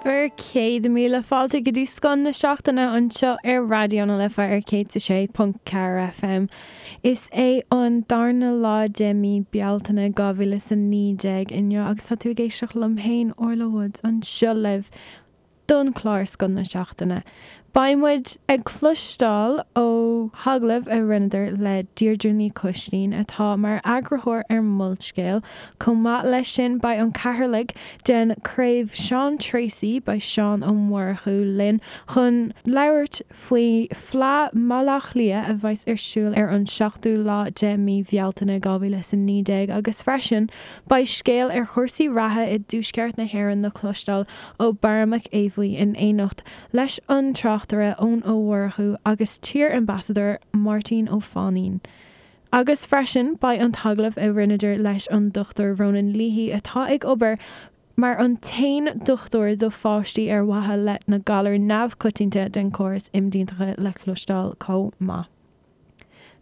Bhur 100,000 fáilte go dtí Scoth na Seachtaine anseo ar Raidió na Life ar 106.4 FM. Is é an darna lá de mí Bealtaine 2019 inniu agus tá tú ag éisteacht liom féin, Orla Woods, anseo libh don chlár Scoth na Seachtaine. Beidh muid ag cloisteáil ó agallamh a rinneadar le Deirdre Ní Choistín atá mar eagarthóir ar Molscéal. Chomh maith leis sin beidh an cathaoirleach den chraobh Seán Treacy, beidh Seán Ó Murchú linn chun labhairt faoi Fleadh mBaile Átha Cliath a bheas ar siúl ar an 7ú lá de mí Bhealtaine 2019 agus freisin beidh scéal ar chúrsaí reatha i dtuaisceart na hÉireann le cloisteáil ó Barra Mac Aodha in éineacht leis an tráchtaire Eoin Ó Murchú agus t-iar-ambasadóir Máirtín Ó Fainín. Agus freisin beidh an t-agallamh a rinneadar leis an Dr Ronan Leahy atá ag obair mar an t-aon dochtúir do pháistí ar mhaithe le na galair neamhchoitianta den chóras imdhíonachta le cloisteáil chomh maith.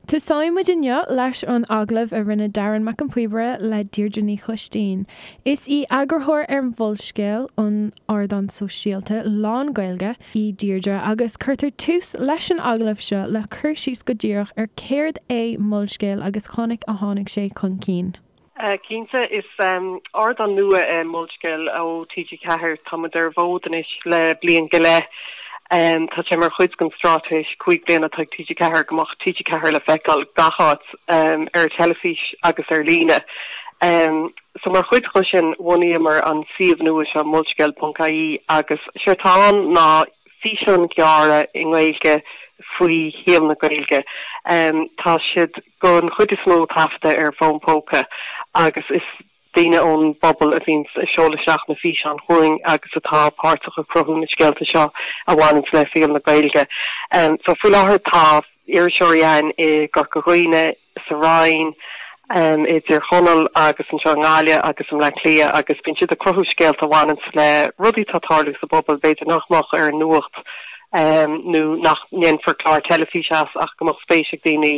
Tosóidh muid inniu leis an agallamh a rinne Darren Mac an Phíobaire le Deirdre Ní Choistín. Is í eagarthóir ar Mholscéal, an ardán sóisialta lán-Ghaeilge, í Deirdre agus cuirtear tús leis an agallamh seo le cur síos go díreach ar céard é Molscéal agus conas a tháinig sé chun cinn. Cinnte, is ardán nua é Molscéal ó TG4. Tá muid ar an bhfód anois le bliain go leith. Tá sé mar chuid den straitéis 5 bliana atá ag TG4 go mbeadh TG4 le feiceáil gach áit ar teilifís agus ar líne. So mar chuid de sin bhunaíomar an suíomh nua seo molscéal.ie agus séard atá ann ná físeáin ghearra i nGaeilge faoi shaol na Gaeilge. Tá siad don chuid is mó taifeadta ar fón póca agus is daoine ón bpobal a bhíonns ag seoladh isteach na físeáin chugainn agus atá páirteach i cruthú na scéalta seo a bhaineanns le saol na Gaeilge. So faoi láthair tá iriseoirí againn i gCorca Dhuibhne, sa Rinn, i dTír Chonaill agus anseo i nGaillimh agus i mBleá Cliath agus bíonn siad ag cruthú scéalta a bhaineanns le rudaí atá ag tarlú sa bpobal, b'fhéidir nach mbeadh ar an nuacht nó nach ndéanfar clár teilifíse as ach go mbeadh spéis ag daoine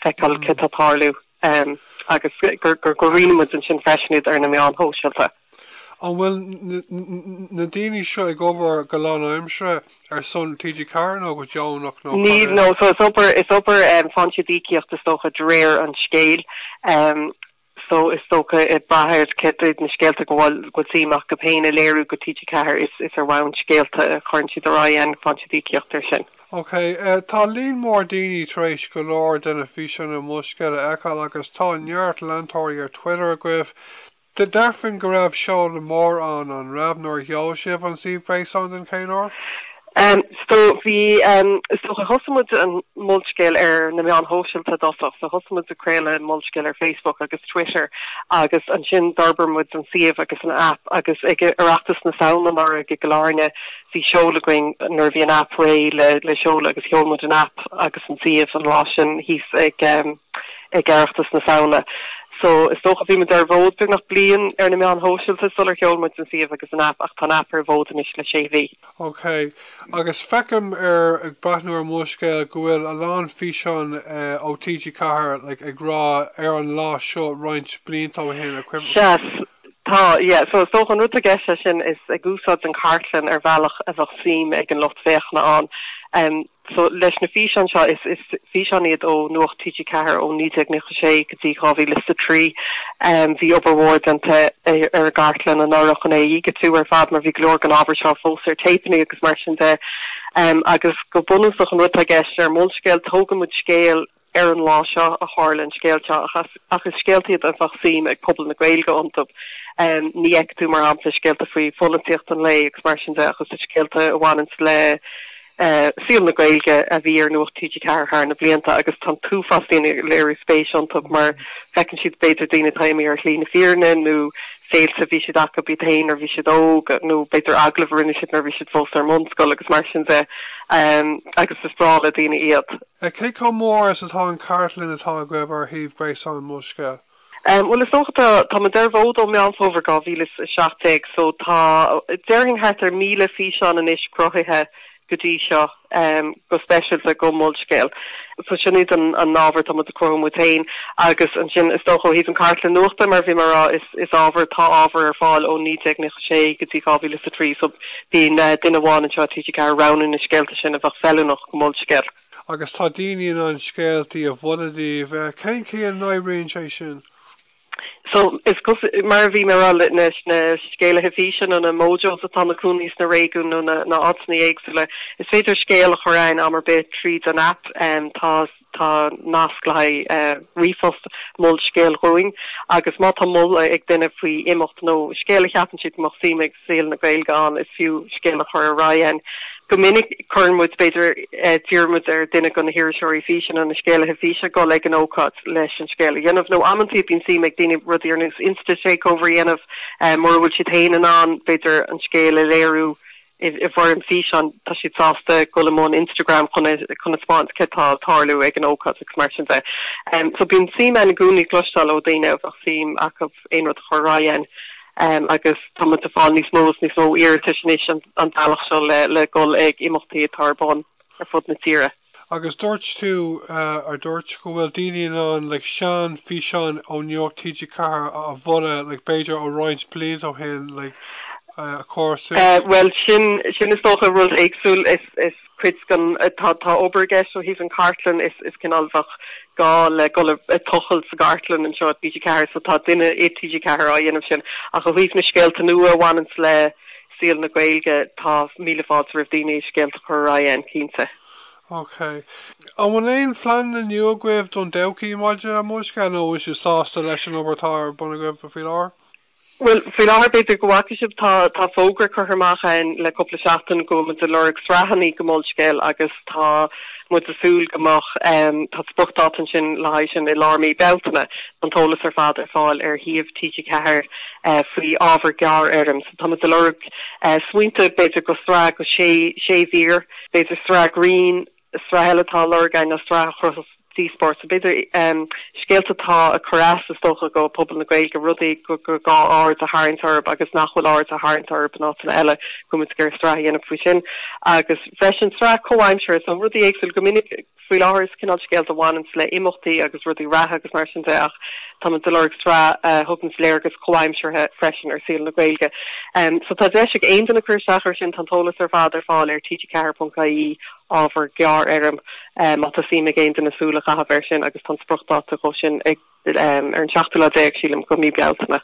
feiceáil céard atá ag tarlú agus go roinneann muid ansin freisin iad ar na meáin shóisialta. An bhfuil na daoine seo ag obair go lánaimseartha ar son TG4 nó go deonach nó cad é? Níl, no, so is obair, is obair, faigheann siad íocaíocht is dócha de réir an scéil. So is dócha ag brath ar céard iad na scéalta go bhfuil go bhfuil suim acu féin a léiriú go TG4 is is ar bhonn scéalta a chuireann siad ar aghaidh ann faigheann siad íocaíocht ar sin. Ok, tá líon mór daoine tar éis go leor de na físeáin ar Molscéal a fheiceáil agus tá neart leantóirí ar Twitter agaibh. Déarfainn go raibh seoladh mór ann, an raibh, nuair a sheol sibh an suíomh gréasáin den chéad uair? So bhí, is dócha, thosaigh muid an Molscéal ar na meáin shóisialta i dtosach. So thosaigh muid ag craoladh Molscéal ar Facebook agus Twitter agus ansin d'fhorbair muid an suíomh agus an aip agus ag Oireachtas na Samhna anuraidh i gCill Airne bhí seoladh againn nuair a bhí an aip réidh le le seoladh agus sheol muid an aip agus an suíomh an lá sin thíos ag ag Oireachtas na Samhna. So is dócha bhí muid ar an bhfód beagnach bliain ar na meáin shóisialta sular sheol muid an suíomh agus an aip ach tá an aip ar an bhfód anois le sé mhí. Ok. Agus feicim ar, ag breathnú ar Molscéal go bhfuil a lán físeán ó TG4 like ag rá ar an lá seo roinnt blianta ó shin, a cuimhin. Sea, tá, yeah. So is dócha an rud atá i gceist leis sin is ag úsáid an chartlann ar bhealach a bheadh suim ag an lucht féachana ann. So, leis na físeáin seo, is is físeáin iad ó Nuacht TG4 ó 1996 go dtí 2003. Bhí obair mhór déanta ar an gcartlann anuraidh chun é a dhigitiú ar fad mar bhí go leor den ábhar seo fós ar téipeanna agus mar sin de. Agus go bunúsach an rud atá i gceist ar Molscéal, tógann muid scéal ar an lá seo a tharla an scéal seo ach is scéalta iad a bheadh suim ag pobal na Gaeilge iontu. Ní fheicfidh tú, mar shampla, scéalta faoi pholaitíocht an lae agus mar sin de ach is scéalta a bhaineanns le saol na Gaeilge a bhí ar Nuacht TG4 thar na blianta agus tá an t-uafás daoine ag léiriú spéis iontu mar feiceann siad b'fhéidir daoine atá imithe ar shlí na fírinne nó féilte a bhí siad acu iad féin nuair a bhí siad óg nó b'fhéidir agallamh a rinne siad nuair a bhí siad fós ar an mbunscoil agus mar sin de agus is breá le daoine iad. Cé chomh mór is atá an chartlann atá agaibh ar shuíomh gréasáin Molscéal? Bhuel, is dócha tá, tá muid ar an bhfód ó Meán Fómhair 2017 so tá, déarfainn thart ar 1,000 físeán anois cruthaithe. go dtí seo, go speisialta go Molscéal. So sin iad an ábhar atá muid ag cruthú muid féin agus ansin is dócha ó thaobh an cartlann nuachta mar a bhí mé a rá is is ábhar, tá ábhar ar fáil ó 1996 go dtí 2003 so bíonn duine amháin anseo i TG4 ag roghnú na scéalta sin a bheadh feiliúnach go Molscéal. Agus tá daoine in ann scéaltaí a mholadh daoibh. Cén chaoi a n-oibríonn sé sin? So, is cosúil, mar a bhí mé a rá, leis na scéalaithe físe nó na Mojos atá ina cónaí sna réigiúin nó na áiteanna éagsúla, is féidir scéal a chur againn am ar bith tríd an aip. Tá tá nasc le haghaidh ríomhphost Molscéal dhúinn agus má tá moladh ag duine faoi imeacht nó scéal a cheapann siad go mbeadh suim ag saol na Gaeilge ann, is fiú scéal a chur ar aghaidh againn. Go minic cuireann muid, b'fhéidir, d'iarr muid ar duine de na hiriseoirí físe nó na scéalaithe físe dul ag an ócáid leis an scéal a dhéanamh. Nó amantaí bíonn suim ag daoine rudaí ar nós Insta Takeover a dhéanamh mura bhfuil siad féin in ann, b'fhéidir, an scéal a léiriú i bhfoirm físeáin, tá siad sásta dul i mbun Instagram chun chun a spáint céard tá ag tarlú ag an ócáid agus mar sin de. So bíonn suim ann i gcónaí cloisteáil ó dhaoine a bheadh suim acu aon rud a chur ar aghaidh againn. Agus tá muid ag fáil níos mó is níos mó iarratais anois an bealach seo le dhul ag imeachtaí atá ar bun ar fud na tíre. Agus dúirt tú, ar dúirt, go bhfuil daoine in ann like sean físeáin ó Nuacht TG4 a mholadh like b'fhéidir ó roinnt blianta ó shin like a chur suas? Bhuel sin, sin is dócha rud éagsúil. Is, is. cuid den, tá, tá obair i gceist ó thaobh an cartlann, is, is cineál bheadh gá le dul ag tochailt sa gcartlann anseo i TG4 so tá duine i TG4 á dhéanamh sin. Ach ó thaobh na scéalta nua a bhaineanns le saol na Gaeilge, tá míle fáilte roimh daoine scéalta a chur ar aghaidh againn, cinnte. Ok. An bhfuil aon phleananna nua agaibh don todhchaí maidir le Molscéal nó an bhfuil sibh sásta leis an obair atá ar bun agaibh faoi láthair? Bhuel, faoi láthair, b'fhéidir go bhfaca sibh, tá tá fógra curtha amach againn le cúpla seachtain go bhfuil muid ag lorg sraitheanna go Molscéal agus tá muid ag súil go mbeadh, tá spriocdháta ansin le haghaidh sin i lár mí Bealtaine. Tá an t-eolas ar fad ar fáil ar shuíomh TG4 faoi ábhar gearrfhoirm. So tá muid ag lorg smaointe b'fhéidir go sraith go sé sé mhír, b'fhéidir sraith grinn, Sraith eile atá á lorg againn ná sraith a chruthós díospóireacht. So b'fhéidir scéalta atá ag cur as, is dócha, go pobal na Gaeilge, rudaí gur gá aird a tharraingt orthu agus nach bhfuil aird á tharraingt orthu in áiteanna eile, go bhfuil muid ag iarraidh sraith a dhéanamh faoi sin. Agus freisin sraith comhaimseartha, so rudaí éagsúla. Go minic faoi láthair is cineál scéalta a bhaineanns le imeachtaí agus rudaí reatha agus mar sin de ach tá muid ag lorg sraith a thuganns léargas comhaimseartha freisin ar saol na Gaeilge. So tá deis ag aon duine cur isteach air sin, tá an t-eolas ar fad ar fáil ar tg4.ie. ábhar gearrfhoirm má tá suim ag aon duine súil a chaitheamh air sin agus tá an spriocdháta dhó sin ag ar an seachtú lá déag, sílim, go mí Bealtaine.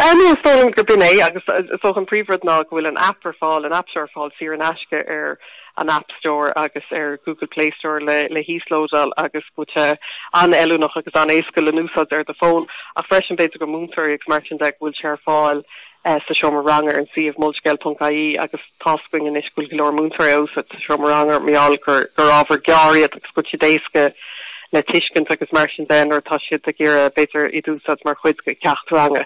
No, is dóigh liom gurb in é agus is dócha an príomhrud ná go bhfuil an aip ar fáil, an aip seo ar fáil saor in aisce ar an App Store agus ar Google Play Store le le híoslódáil agus go bhfuil sé an-fheiliúnach agus an-éasca le n-úsáid ar do fón ach freisin b'fhéidir go múinteoirí agus mar sin de go bhfuil sé ar fáil sa seomra ranga ar an suíomh molscéal.ie agus tá's againn anois go bhfuil go leor múinteoirí á úsáid sa seomra ranga mar gheall gur gur ábhar gearr iad agus go bhfuil siad éasca le tuiscint agus mar sin de nuair atá siad ag iarraidh b'fhéidir iad a úsáid mar chuid de cheacht ranga.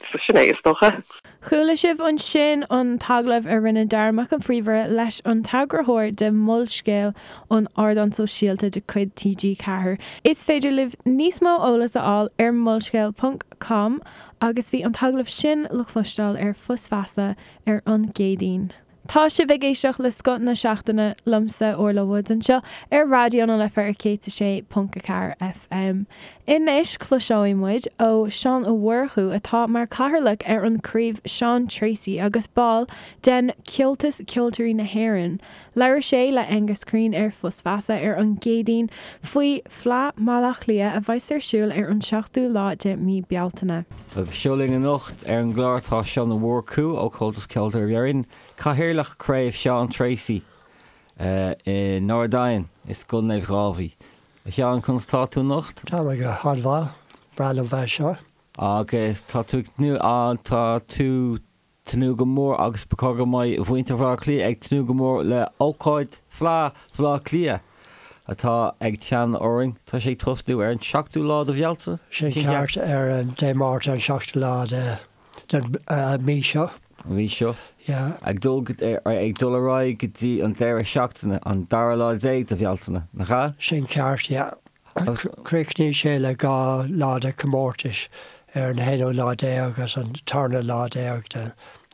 So sin é is dócha. Chuala sibh ansin an t-agallamh a rinne Dara Mac an Phríomhaire leis an t-eagarthóir de Molscéal, an ardán sóisialta de chuid TG4. Is féidir libh níos mó eolas a fháil ar molscéal ponc com Agus bhí an t-agallamh sin le cloisteáil ar Fios Feasa ar an gCéadaoin. Tá sibh ag éisteacht le Scoth na Seachtaine liomsa, Orla Woods, anseo ar Raidió na Life ar 106.4 FM. Anois cloisfidh muid ó Seán Ó Murchú atá mar chathaoirleach ar an craobh Sean Treacy agus ball den Comhaltas Ceoltóirí na hÉireann. Labhair sé le Aengus Crean ar Fios Feasa ar an gCéadaoin faoi Fleadh Bhaile Átha Cliath a bheas ar siúl ar an 7ú lá de mí Bealtaine. Agus seo linn anocht ar an gclár tá Seán Ó Murchú ó Chomhaltas Ceoltóirí Éireann, Cathaoirleach Craobh Seán Treacy i nArd Eidhin i Scoil Naomh Dháibhí. A Sheáin, conas tá tú anocht? Tá mé go han-mhaith, breá liom bheith anseo. Agus tá tú ag tnúth, tá tú tnúth go mór agus ba chóir go mbeidh muintir Bhaile Átha Cliath ag tnúth go mór le ócáid Fleadh Bhaile Átha Cliath atá ag teannadh orainn. Tá sé ag tosnú ar an seachtú lá de Bhealtaine? Sin ceart, ar an Dé Máirt an seachtú lá de den mí seo. An mhí seo. Yeah. Ag dul ag dul ar aghaidh go dtí an deireadh seachtaine, an dara lá déag de Bhealtaine, nach ea? Sin ceart, yeah. Críochnaíonn sé le 2 lá de chomórtais ar an haonú lá déag agus an tarna lá déag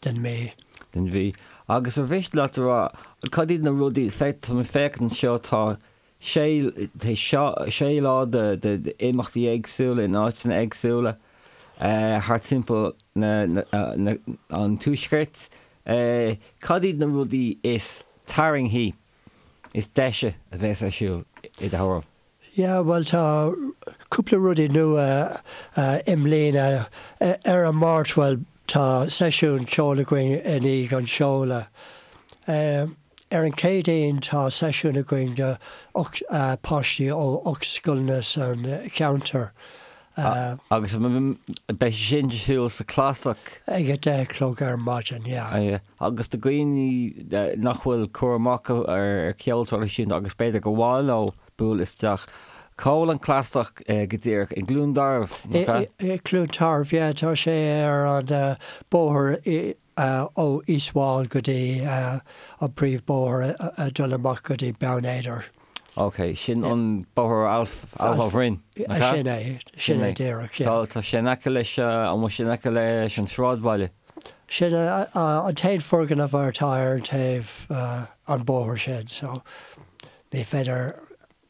den mhí. Den mhí. Agus ar mhiste leat a rá, cad iad na rudaí, tá mé ag féachaint anseo, tá sé, sé lá de imeachtaí éagsúla in áiteanna éagsúla thart timpeall na, an tuaiscirt. Cad iad na rudaí is tarraingthí, is deise a bheas ar siúl i do thuairim? Yeah, bhuel tá cúpla rudaí nua i mbliana. Ar an Máirt, bhuel tá seisiún ceoil againn i ndiaidh an seoladh. Ar an Chéadaoin tá seisiún againn do páistí ó 8 scoileanna san cheantar. Agus beidh sé sin ar siúl sa Clasach. Ag a 10 a chlog ar maidin, yeah. Agus do dhaoine nach bhfuil cur amach acu ar cheol traidisiúnta agus b'fhéidir gur mhaith leo bualadh isteach, cá bhfuil an Clasach go díreach? I gCluain Tarbh, nach ea? I gCluain Tarbh, yeah. Tá sé ar an bóthar ó East Wall go dtí an príomhbóthar ag dul amach go dtí Beann Éadair. Ok, sin an bóthar Alpha Bhroin, nach ea? Sin é, sin é díreach, yeah. So tá sé in aice leis, an bhfuil sé in aice leis an sráidbhaile? Sin an t-aon foirgneamh atá ar an taobh an bóthar sin, so ní féidir.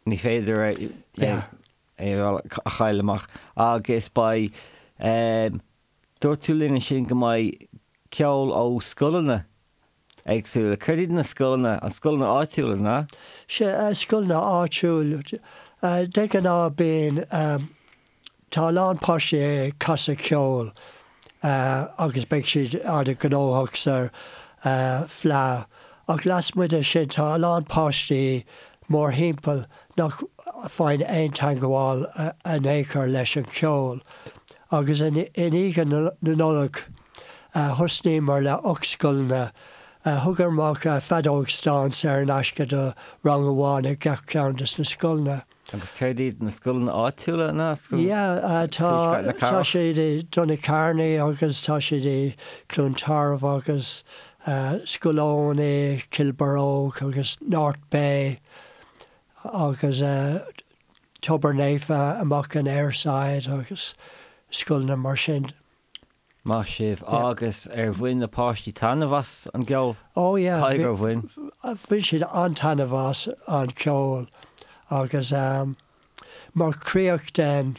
Ní féidir é a chailleadh amach. Agus beidh, Dúirt tú linn ansin go mbeidh ceol ó scoileanna éagsúla. Céard iad na scoileanna? An scoileanna áitiúla, an ea? Sea, scoileanna áitiúil. De ghnáth bíonn, tá a lán páistí ag casadh ceoil agus beidh siad an-ghnóthach sa Fleadh. Ach lasmuigh de sin tá a lán páistí mórthimpeall nach bhfaigheann aon teangmháil in aon chor leis an cheol. Agus i ndiaidh na Nollag thosnaíomar le 8 scoileanna. Thugamar amach feadóg stáin saor in aisce do rang amháin i gach ceann de na scoileanna. Agus céard iad na scoileanna áitiúla ná Yeah, tá na tá siad i Donacarney agus tá siad i Cluain Tarbh agus Scoil Eoin i Cill Barróg agus North Bay agus Tobar Naofa amach in Aireside agus scoileanna mar sin. Maith sibh. Agus ar bhain na páistí taitneamh as an gceol? Oh yeah. Caithfidh gur bhain. Bhain siad an-taitneamh as an cheol agus mar chríoch den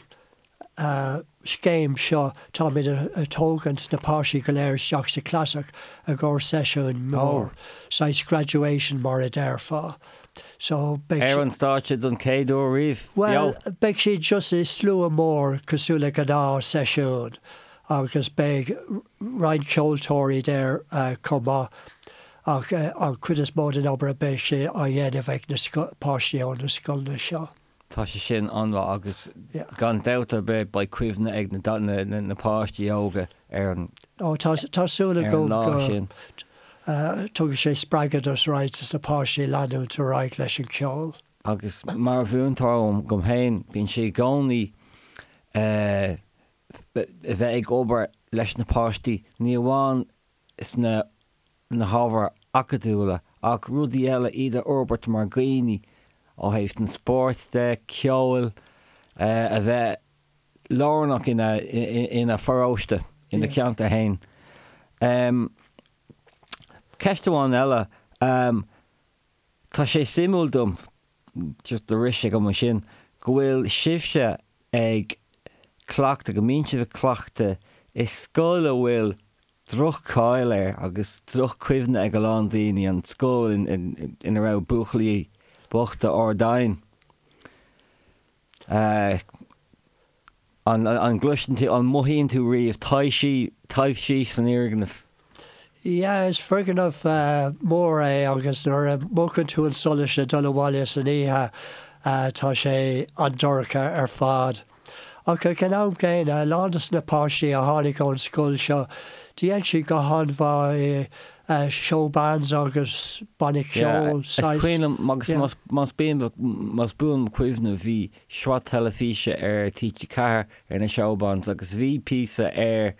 scéim seo táimid ag tógaint na páistí go léir isteach sa Chlasach i gcomhair seisiún mór, saghas graduation mar a déarfá. So beidh. Ar an stáitse don chéad uair riamh, beo! Bhuel, beidh siad just i slua mór cosúil le gnáth seisiún agus beidh roinnt ceoltóirí there chomh maith ach an chuid is mó den obair beidh sé á dhéanamh ag na páistí ó na scoileanna seo. Tá sé sin an-mhaith agus gan dabht ar bith beidh cuimhne ag na páistí óga ar an Ó tá tá súil agam lá sin. go dtugfaidh sé spreagadh do roinnt de na páistí leanúint ar aghaidh leis an cheol. Agus mar mhúinteoir dom féin, bíonn sé i gcónaí a bheith ag obair leis na páistí, ní amháin sna na hábhair acadúla ach rudaí eile, iad a fhorbairt mar dhaoine ó thaobh an spóirt de, ceoil, a bheith lárnach ina ina pharóiste, ina cheantar féin. Ceist amháin eile, tá sé suimiúil dom, just do rith sé agam ansin, go bhfuil sibhse ag cleachtadh, go mbíonn sibh ag cleachtadh i scoil a bhfuil droch-cháil air agus droch-chuimhne ag a lán daoine, an scoil ina raibh buachaillí bochta Ardáin. An gcloiseann tú, an mothaíonn tú riamh taibhsí, taibhsí san fhoirgneamh? Yeah, is foirgneamh mór é agus nuair a mhúchann tú an solas le dul abhaile san oíche tá sé an-dorcha ar fad. Ach ag an am gcéanna, a lán de na páistí a tháinig ón scoil seo, dhein siad go han-mhaith i show bands agus banna ceoil. Is cuimhin liom, agus más más buan mo chuimhne, bhí sraith teilifíse ar TG4 ar na show bands agus bhí píosa ar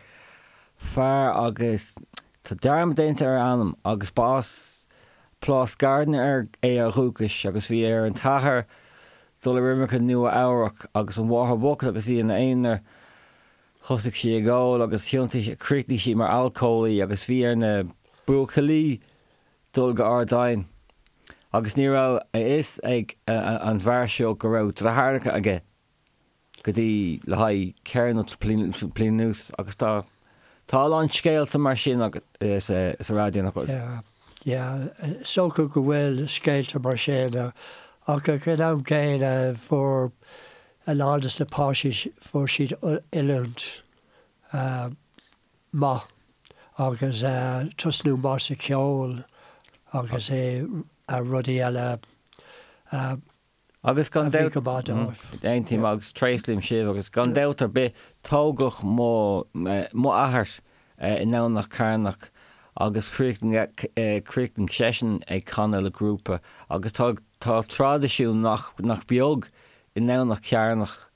fear agus tá dearmad déanta ar a ainm agus ba as Plás Gardiner é ó dhúchas agus bhí ar an t-athair dul ar imirce Nua Eabhrac agus an mháthair bhocht agus í ina aonar. Thosaigh sí ag ól agus thiontaigh, chríochnaigh sí mar alcólaí agus bhí ar na buachaillí. dul go Ard Oinn agus ní raibh a fhios ag an bhfear seo go raibh deartháireacha aige go dtí le haghaidh ceithre nó bliain anuas agus tá tá a lán scéalta mar sin sa raidió nach bhfuil? Yeah, yeah, is dócha go bhfuil scéalta mar sin ach ag an am gcéanna fuair a lán des na páistí fuair siad oiliúint maith agus tosnú maith sa cheol agus i rudaí eile a Agus gan bhí go maith dóibh. Aontaím agus tréaslaím sibh agus gan dabht ar bith tógadh mo mo athair i nDomhnach Cearnach agus chríochnaigh seisean ag canadh le grúpa agus tá tá traidisiún nach nach beag i nDomhnach Cearnach.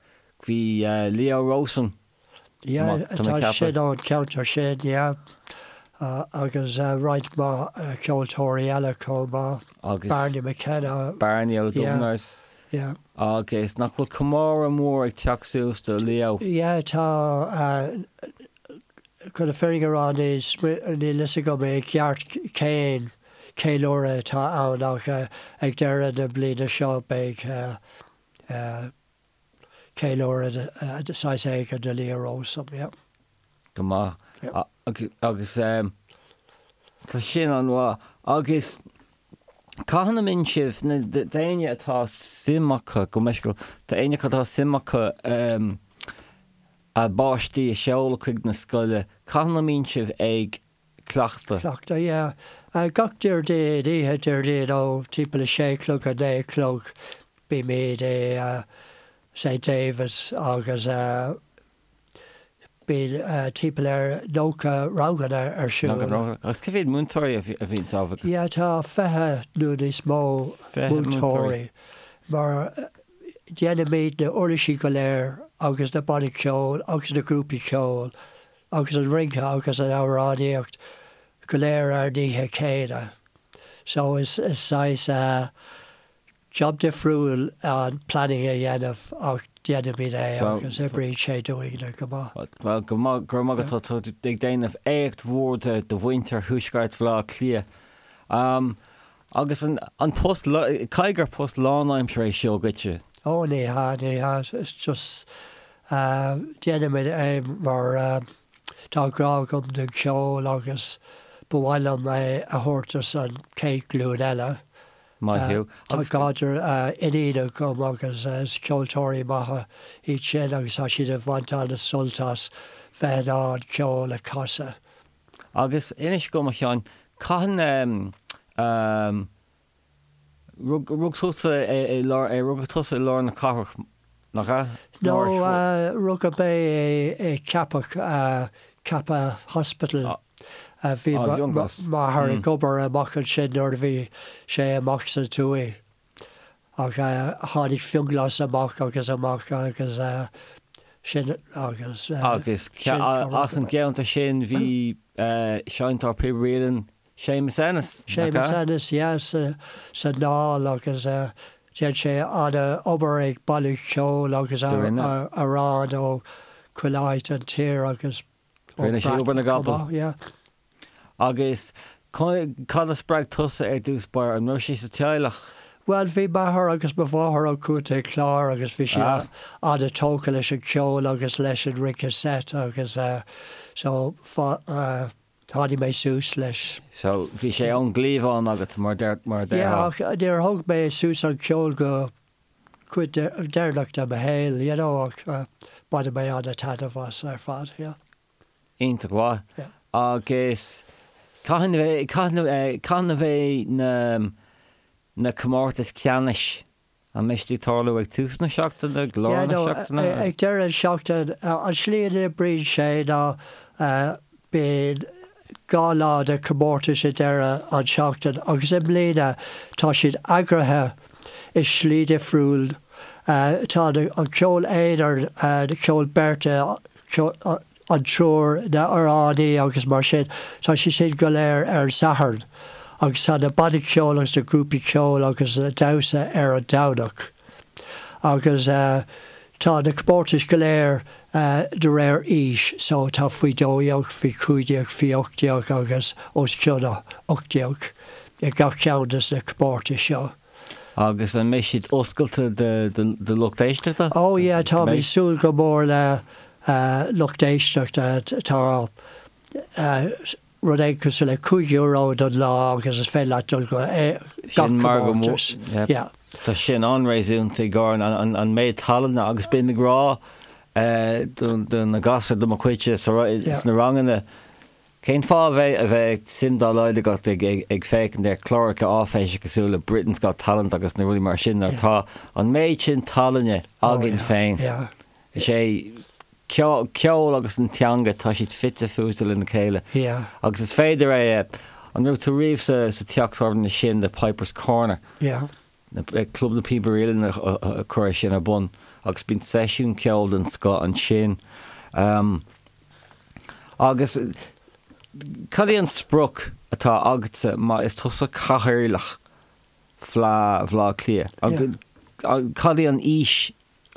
Bhí Leo Rowsome Yeah, tá sin ón cheantar sin, yeah. Agus roinnt mhaith ceoltóirí eile chomh maith. Agus Barney McKenna. Barney ó Dubliners. Yeah. Agus nach bhfuil comóradh mór ag teacht suas do Leo? Yeah, tá. Chun na fírinne a rá, níl fhios agam i gceart cén ceiliúradh atá ann ach ag deireadh na bliana seo beidh ceiliúradh de saghas éigin do Leo Rowsome, yeah. Go maith. Agus tá sin an-mhaith. Agus cathain a mbíonn sibh, na d'éinne atá suim acu, go meisciúil, d'éinne acu atá suim acu a bpáistí a sheoladh chuig na scoile, cathain a mbíonn sibh ag cleachtadh? Cleachtadh, yeah. Gach Déardaoin, oíche Déardaoin ó timpeall a sé a chlog go naoi a chlog bímid i St David's agus bíonn timpeall ar 90 ranganna ar siúl. 90 rang. Agus cé mhéad múinteoirí a bhíonn ann? Yeah, tá 20 nó níos mó múinteoirí mar déanaimid na uirlisí go léir agus na bannaí ceoil agus na grúpaí ceoil agus an rince agus an amhránaíocht go léir ar an oíche chéanna. So is saghas job difriúil an planning a dhéanamh ach déanaimid é agus oibríonn sé dúinne go maith. Bhuel, go maith, go raibh maith agat, tá tú ag déanamh éacht mhór do mhuintir Thuaisceart Bhaile Átha Cliath. Agus an post, caithfidh gur post lánaimseartha é seo dhuitse? Ó ní hea, ní hea, it's just déanaimid é mar tá grá agam don cheol agus ba mhaith liom é a thabhairt dos an chéad ghlúin eile. Maith thú. Tá gadhar iníon agam agus is ceoltóirí maithe iad sin agus tá siad ag baint an-sult as bheith in ann ceol a chasadh. Agus inis dom, a Sheáin, cathain a rug tusa i lár, rugadh tusa i lár na cathrach, nach ea? No, rugadh mé i Ceapach, Cappagh Hospital. Bhí m'athair ag obair amach ansin nuair a bhí sé amach sa tuaith. Ach tháinig Fionnghlas amach agus amach agus sin agus. Agus as an gceantar sin bhí seinnteoir píob uilleann Séamus Ennis, nach ea? Séamus Ennis, yeah, sa Dáil agus dhein sé an-obair ag bailiú ceoil agus amhrán ó chuile áit an tír agus Rinne sé obair na gcapall. Agus cad a spreag tusa ar dtús báire? An raibh sé sa teaghlach? Bhuel, bhí m'athair agus mo mháthair ó Chontae Chláir agus bhí siad an-tógtha leis an cheol agus leis an rince seit agus so tháinig mé suas leis. So bhí sé ón gcliabhán agat mar a déarfá? Yeah, ach níor thóg mé suas an ceol go cuid deireanach de mo shaol, you know, ach baineann mé an-taitneamh as ar fad, yeah. Iontach mhaith. Yeah. Agus cathain a bheidh, cathain a bheidh na, na comórtais ceannais, an mbeidh siad ag tarlú ag tús na seachtaine, ag lár Yeah, na no, seachtaine? ag deireadh na seachtaine, an slí a n-oibríonn sé ná Bíonn 2 lá de chomórtais ag deireadh an tseachtain agus i mbliana tá siad eagraithe i slí difriúil. Tá an ceol aonair, ceol beirte, an triúr, na amhránaí agus mar sin, tá siad sin go léir ar an Satharn agus tá na bannaí ceoil agus na grúpaí ceoil agus damhsa ar an Domhnach. Agus tá na comórtais go léir de réir aois, so tá faoi 12, faoi 15, faoi 18 agus os cionn 18. i gach ceann des na comórtais seo. Agus an mbeidh siad oscailte do lucht éisteachta? Oh yeah, táimid ag súil go mór le lucht éisteachta. Tá rud éigin cosúil le €5 don lá agus is féidir leat dul go gach comórtas. Yeah. Tá sin an-réasúnta i gcomhair an méid tallainne agus bím ag rá do na gasúir de mo chuidse sna ranganna, cén fáth a bheith a bheith suim dá laghad agat ag féachaint ar chláracha áiféise cosúil le Britain's Got Talent agus na rudaí mar sin nuair atá an méid sin tallainne againn féin. Is é ceol agus an teanga, tá siad fite fuaite lena chéile. Agus is féidir é a, an raibh tú riamh sa teach tábhairne sin, The Piper's Corner? Club na Píobairí Uilleann a chuir é sin ar bun agus bíonn seisiún ceoil den scoth ansin. Agus cad é an sprioc atá agatsa má is tusa cathaoirleach Fleadh Bhaile Átha Cliath? Cad é an fhís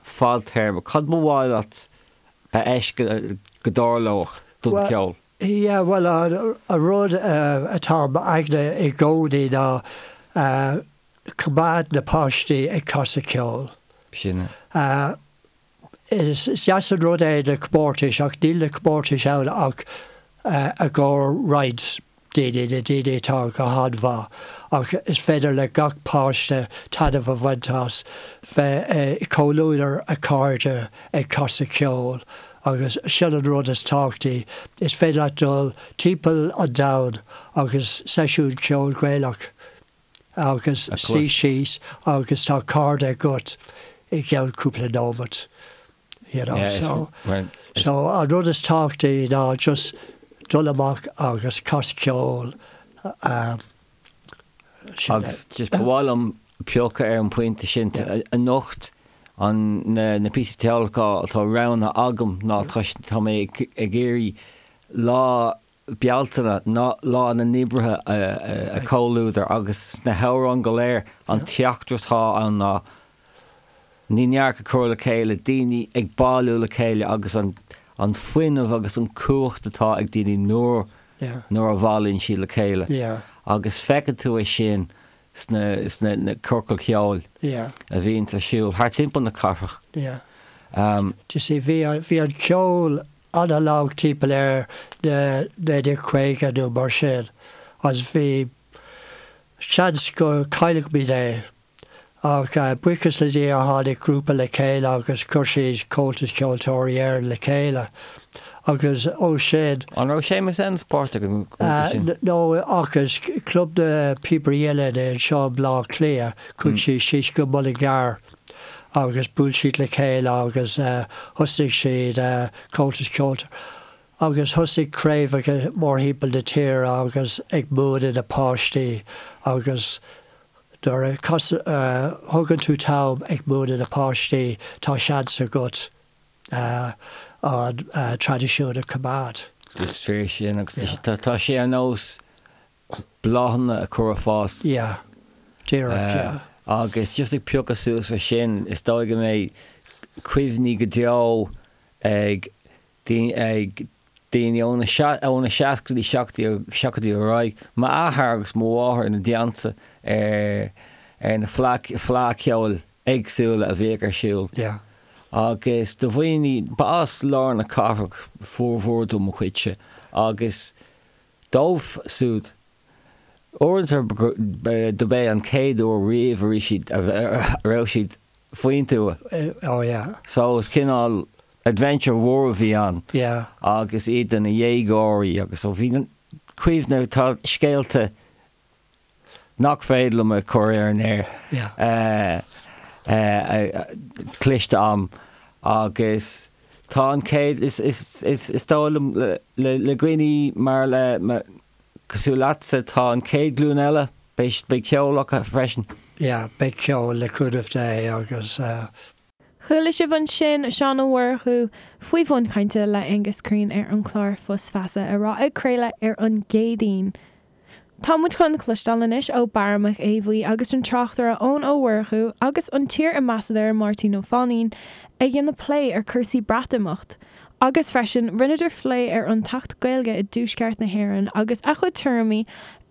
fadtéarma, cad ba mhaith leat a fheiscint go dtarlódh don cheol? Yeah, bhuel, an rud atá i m'aigne i gcónaí ná coimeád na páistí ag casadh ceoil. Sin é. Is deas an rud é na comórtais ach níl na comórtais ann ach i gcomhair roinnt daoine, na daoine atá go han-mhaith, ach is féidir le gach páiste taitneamh a bhaint as bheith i gcomhluadar a chairde ag casadh ceoil agus sin an rud is tábhachtaí. Is féidir leat dul timpeall an domhain agus seisiún ceoil Gaelach agus suí síos agus tá cairde agat i gceann cúpla nóiméad. You know, so, so an rud is tábhachtaí ná just dul amach agus cas ceol. Agus just ba mhaith liom piocadh ar an bpointe sin anocht an na píosaí ceoil atá roghnaithe agam ná tá tá mé ag iarraidh lá Bealtaine ná Lá na nOibrithe a chomhluadar agus sna hamhráin go léir an teachtaireacht atá ann ná ní neart a chur le chéile, daoine ag bailiú le chéile agus an an fuinneamh agus an cumhacht atá ag daoine nuair nuair a bhailíonn siad le chéile agus feiceann tú é sin sna sna na ciorcail cheoil a bhíonns ar siúl thart timpeall na cathrach. You see bhí bhí an ceol an-lag timpeall ar na 1950 nó mar sin agus bhí seans go gcaillfimid é ach buíochas le Dia tháinig grúpa le chéile agus chuir siad Comhaltas Ceoltóirí Éireann le chéile agus ó sin. An raibh Séamus Ennis páirteach sa ghrúpa sin? No ach is Club na Píobairí Uilleann anseo i mBleá Cliath, chuaigh siad síos go Mullingar agus bhuail siad le chéile agus thosnaigh siad Comhaltas Ceoltóirí agus thosaigh craobhacha mórthimpeall na tíre agus ag múineadh na páistí agus nuair a thugann tú t-am ag múineadh na páistí tá seans agat an traidisiún a choimeád. Is fíor sin agus tá sé ar nós bláthanna a chur ag fás. Yeah. Díreach, yeah. Agus just ag piocadh suas ar sin, is dóigh go mbeidh cuimhní go deo ag ag daoine ó na ó na seascaidí, seachtóidí ar aghaidh. M'athair agus mo mháthair ina dteannta ar ar na fleá ceoil éagsúla a bhíodh ar siúl. Yeah. Agus do dhaoine, ba as lár na cathrach formhór de mo chuidse agus Dóibh siúd, uaireanta dob é an chéad uair riamh a raibh siad a raibh siad faoin tuath. Oh yeah. So is cineál adventure mhór a bhí ann. Yeah. Agus iad ina dhéagóirí agus so bhí cuimhne, tá scéalta nach féidir liom a chur ar an aer cloiste a'm agus tá an chéad, is, is, is, is dóigh liom le, le dhaoine mar le, cosúil leatsa, tá an chéad ghlúin eile, beidh, beidh ceol acu freisin. Yeah, beidh ceol le cúnamh Dé agus. Chuala sibh ansin Seán Ó Murchú faoi bhun cainte le Aengus Crean ar an chlár Fios Feasa a raibh ag craoladh ar an gCéadaoin. Tá muid chun cloisteáil anois ó Barra Mac Aodha Bhuí agus an tráchtaire Eoin Ó Murchú agus an t-iar-ambasadóir Máirtín Ó Fainín ag déanamh plé ar cúrsaí Breatimeacht agus freisin rinneadar phlé ar an tAcht Gaeilge i dTuaisceart na hÉireann agus a chuid tuairimí.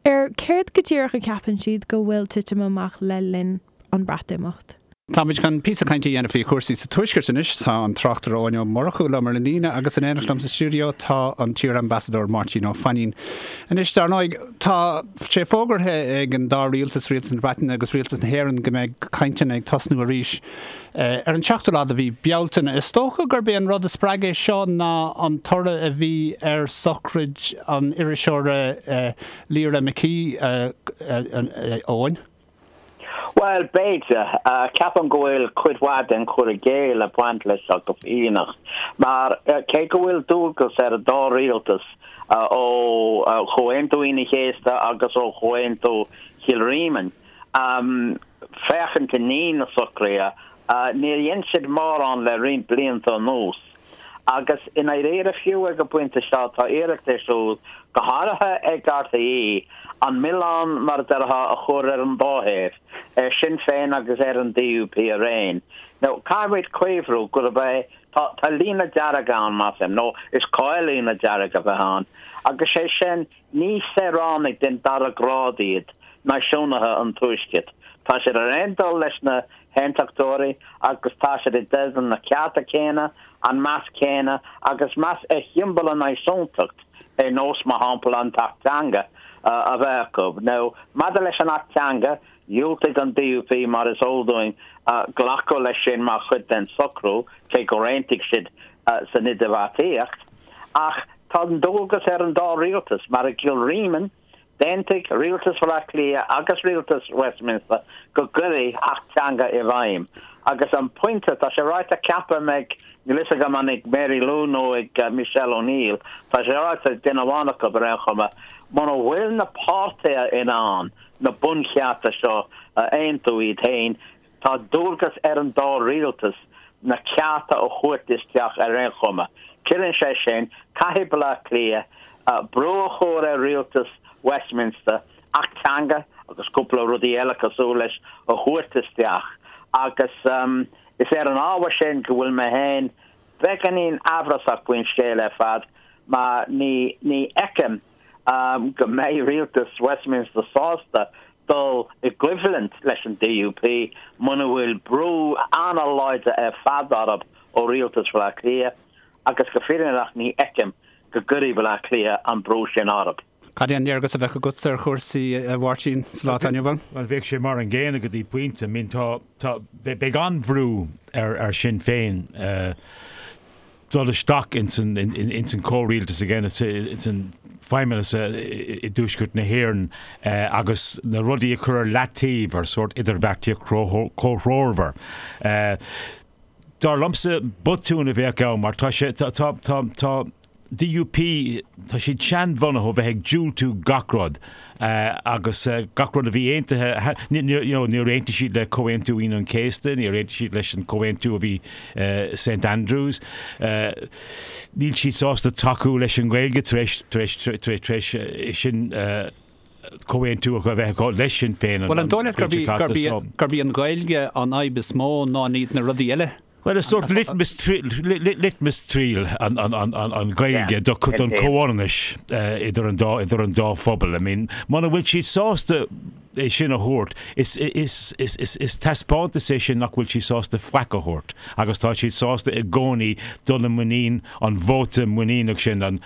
Ar céard go díreach a cheapann siad go bhfuil titim amach le linn an Breatimeacht? Táimid chun píosa cainte a dhéanamh faoi chúrsaí sa Tuaisceart anois. Tá an tráchtaire Eoin Ó Murchú liom ar an líne agus in éineacht liom sa stiúideo tá an t-iar-ambasadóir Máirtín Ó Fainín. Anois, dar ndóigh, tá sé fógartha ag an dá rialtas, Rialtas na Breataine agus Rialtas na hÉireann, go mbeidh cainteanna ag tosnú arís ar an seachtú lá de mhí Bealtaine. Is dócha gurb é an rud a spreag é seo ná an toradh a bhí ar sochraid an iriseora Lyra McKee, Eoin. Bhuel, b'fhéidir. Ceapaim go bhfuil cuid mhaith den chur i gcéill ag baint leis seo go fírinneach, mar cé go bhfuil dualgas ar an dá rialtas ó Chomhaontú Aoine an Chéasta agus ó Chomhaontú Chill Ríminn féachaint i ndiaidh na socruithe, níor dhein siad mórán le roinnt blianta anuas. Agus i ndáiríre, fiú ag an bpointe seo, tá iarracht ar siúl, go háirithe ag RTÉ, an milleán, mar a déarfá, a chur ar an dá thaobh, ar Sinn Féin agus ar an DUP araon. Now, caithfimid cuimhniú gurb é, tá, tá líne dearg ann, measaim, nó is cóir líne dearg a bheith ann, agus sé sin, ní saoránaigh den dara grád iad náisiúnaithe an Tuaiscirt. Tá siad ar aon dul leis na hAontachtóirí agus tá siad i dteideal na cearta céanna, an meas céanna agus meas ar shiombail an náisiúntacht ar nós, mar shampla, an tAcht Teanga a bheith acu. Now, maidir leis an Acht Teanga, dhiúltaigh an DUP, mar is eol dúinn, glacadh leis sin mar chuid den socrú, cé gur aontaigh siad san idirbheartaíocht. Ach tá an dualgas ar an dá rialtas, mar i gCill Ríminn, D'aontaigh Rialtas Bhaile Átha Cliath agus Rialtas Westminster go gcuirfí Acht Teanga i bhfeidhm agus an pointe, tá sé ráite ceapaim ag, níl fhios agam an ag Mary Lou nó ag Michelle O'Neill, tá sé ráite ag duine amháin acu ar aon chuma, muna bhfuil na páirtithe in ann na bunchearta seo a aontú iad féin, Tá dualgas ar an dá rialtas na cearta a thabhairt isteach ar aon chuma. Ciallaíonn sé sin, caithfidh Baile Átha Cliath brú a chur ar rialtas Westminster Acht Teanga agus cúpla rudaí eile cosúil leis a thabhairt isteach agus is ar an ábhar sin go bhfuil mé féin beagáinín amhrasach faoin scéal ar fad mar ní fheicim go mbeidh rialtas Westminster sásta dul i gcoimhlint leis an DUP muna bhfuil brú an-láidir ar fad orthu ó rialtas Bhaile Átha Cliath agus go fírinneach ní fheicim go gcuirfidh Baile Átha Cliath an brú sin orthu. Cad é an léargas a bheadh agatsa ar chúrsaí, a Mháirtín, sa lá atá inniu ann? Bhuel, bheadh sé mar an gcéanna go dtí pointe. I mean, tá, tá, beidh an-bhrú ar Sinn Féin dul isteach ins an, ins an comhrialtas again, ins an feidhmeannas i dTuaisceart na hÉireann agus na rudaí a chur ar leataobh ar sórt idirbheartaíocht comhthreomhar. Dar liomsa, botún a bheadh ann mar tá sé, tá, tá, tá, tá, DUP, tá siad seanbhunaithe ó bheith ag diúltú gach rud agus gach rud a bhí aontaithe, you know, níor aontaigh siad le Comhaontú Aoine an Chéasta, níor aontaigh siad leis an comhaontú a bhí St Andrews, níl siad sásta tacú leis an nGaeilge tar éis, tar éis, tar éis, tar éis sin comhaontú a bheith acu le Sinn Féin an Bhuel, an dóigh leat gurb í an Ghaeilge an fhadhb is mó ná ní na rudaí eile? Bhuel, is sórt litmus triail an Ghaeilge don chomhionannas idir an dá idir an dá phobal. I mean, muna bhfuil siad sásta é sin a thabhairt, is is is is is taispeántas é sin nach bhfuil siad sásta faic a thabhairt agus tá siad sásta i gcónaí dul i muinín an vóta muiníneach sin, an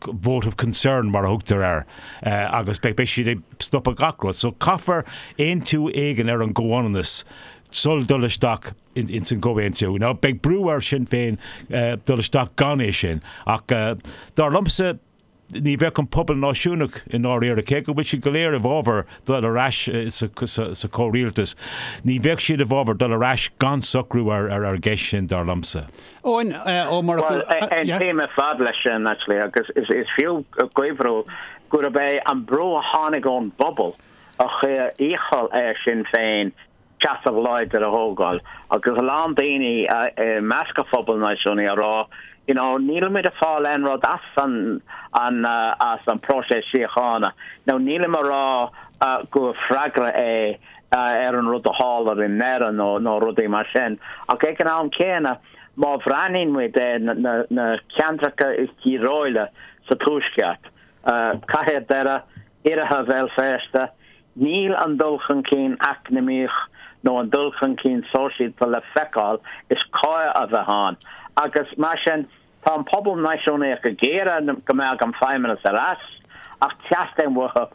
vote of concern mar a thugtar air, agus beidh siad ag stopadh gach rud. So caithfear aontú éigin ar an gcomhionannas sul dul isteach ins an gcomhaontú. Now beidh brú ar Sinn Féin dul isteach gan é sin, ach dar liomsa ní bheadh an pobal náisiúnach i ndáiríre, cé go bhfuil siad go léir i bhfabhar dul ar ais sa chomhrialtas, ní bheadh siad i bhfabhar dul ar ais gan socrú ar an gceist sin, dar liomsa. Eoin Ó Murchú, Bhuel, aontaím ar fad leis sin, actually, agus is fiú cuimhniú gurb é an brú a tháinig ón bpobal a chuir iachall ar Sinn Féin seasamh láidir a thógáil, agus a lán daoine i measc an phobail náisiúnaigh ag rá, you know, nílimid ag fáil aon rud as an, an, as an próiseas síochána. Now, nílim ag rá gur freagra é ar an rud a tharla i nDoire nó nó rudaí mar sin. Ach ag an am céanna, má bhreathnaíonn muid ar na ceantracha is díobhálaí sa Tuaisceart, Cathair Dhoire, Iarthar Bhéal Feirste, níl an dul chun cinn eacnamaíoch nó an dul chun cinn sóisialta le feiceáil is cóir a bheith ann agus mar sin tá an pobal náisiúnaíoch ag iarraidh go mbeadh an Feidhmeannas ar ais ach teastaíonn uathu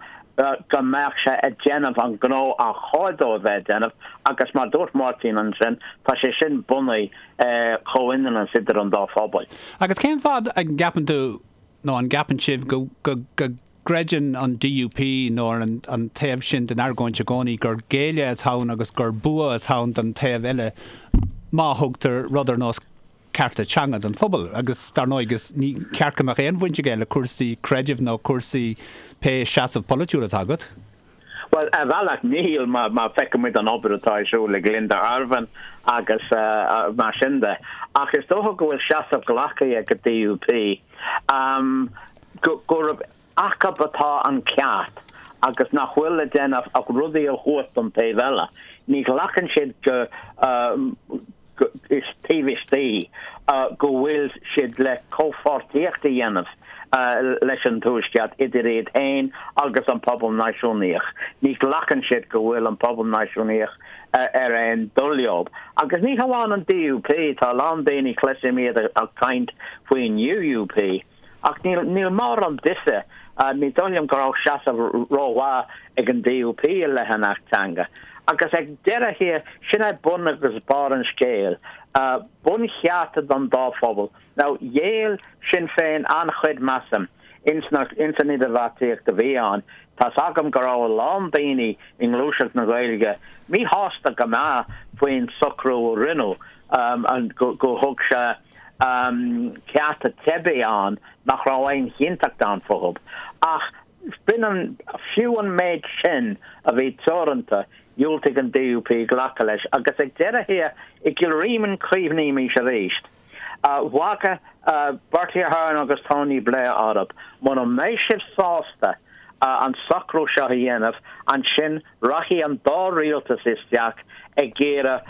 go mbeadh sé ag déanamh an gnó ar chóir dó a bheith ag déanamh agus mar dúirt Máirtín ansin tá sé sin bunaithe ar chomhionannas idir an dá phobal. Agus cén fáth a gceapann tú nó an gceapann sibh go gcreideann an DUP nó an taobh sin den argóint i gcónaí gur géilleadh atá ann agus gur bua atá ann don taobh eile má thugtar rud ar nós cearta teanga don phobal agus dar ndóigh is ní ceart go mbeadh aon bhaint aige le cúrsaí creidimh nó cúrsaí pé seasamh polaitiúil atá agat. Bhuel, ar bhealach níl, má feicimid an obair atá ar siúl ag Linda Ervine agus mar sin de. Ach is dócha go bhfuil seasamh glactha ag an DUP gurb acu atá an ceart agus nach bhfuil le déanamh ach rudaí a thabhairt don taobh eile. Ní ghlacann siad go is taobh istigh go bhfuil siad le comhpháirtíocht a dhéanamh leis an Tuaisceart idir iad féin agus an pobal náisiúnaíoch. Ní ghlacann siad go bhfuil an pobal náisiúnaíoch ar aon dul leo. Agus ní hamháin an DUP, tá a lán daoine, cloisim iad ag caint faoin UUP. Ach níl, níl mórán difir, ní dóigh liom go raibh seasamh rómhaith ag an DUP i leith an Acht Teanga. Agus ag deireadh thiar, sin é bun agus barr an scéil. Bunchearta don dá phobal. Now, ghéill Sinn Féin an-chuid, measaim, ins na, ins an idirbheartaíocht a bhí ann. Tá's agam go raibh a lán daoine i ngluaiseacht na Gaeilge míshásta go maith faoin socrú a rinneadh, go, go thug sé, cearta teibí ann nach raibh aon chinnteacht ann fúthu. Ach b'in an, fiú an méid sin a bhí teoranta, dhiúltaigh an DUP glacadh leis. Agus ag deireadh thiar, i gCill Ríminn cuimhnímís arís, bhagair Bertie Ahern agus Tony Blair orthu, mura mbeidh sibh sásta an socrú seo a dhéanamh, ansin Rachaidh an dá rialtas isteach ag iarraidh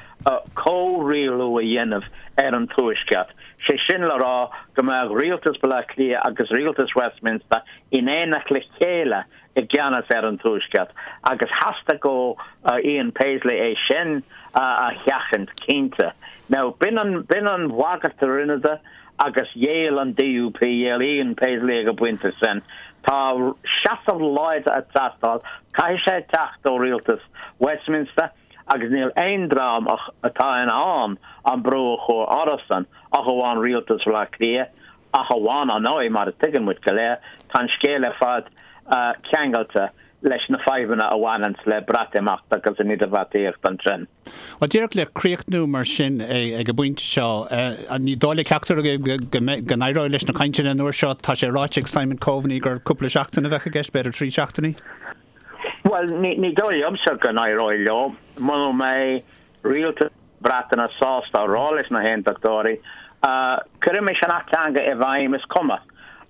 comhrialú a dhéanamh ar an Tuaisceart, sé sin le rá go mbeadh rialtas Bhaile Átha Cliath agus rialtas Westminster in éineacht le chéile i gceannas ar an Tuaisceart, agus theastaigh ó Ian Paisley é sin a sheachaint, cinnte. Now, b'in an, b'in an bhagairt a rinneadar. Agus ghéill an DUP, ghéill Ian Paisley ag an bpointe sin. Tá seasamh láidir ag teastáil, caithfidh sé teacht ó rialtas Westminster agus níl aon dream atá in ann an brú a chur orthusan ach amháin rialtas Bhaile Átha Cliath, ach amháin, ar ndóigh, mar a tuigeann muid go léir, tá an scéal ar fad ceangailte leis na fadhbanna a bhaineanns le Breatimeacht agus an idirbheartaíocht ansin. Bhuel, díreach le críochnú mar sin ag an bpointe seo, ní dóigh le ceachtar agaibh go n-éireoidh leis na cainteanna an uair seo. Tá sé ráite ag Simon Coveney gur cúpla seachtain a bheadh i gceist, b'fhéidir 3 seachtainí. Bhuel, ní dóigh liomsa go n-éireoidh leo muna mbeidh rialtas na Breataine sásta a rá leis na hAontachtóirí, 'Cuirimis an Acht Teanga i bhfeidhm, is cuma,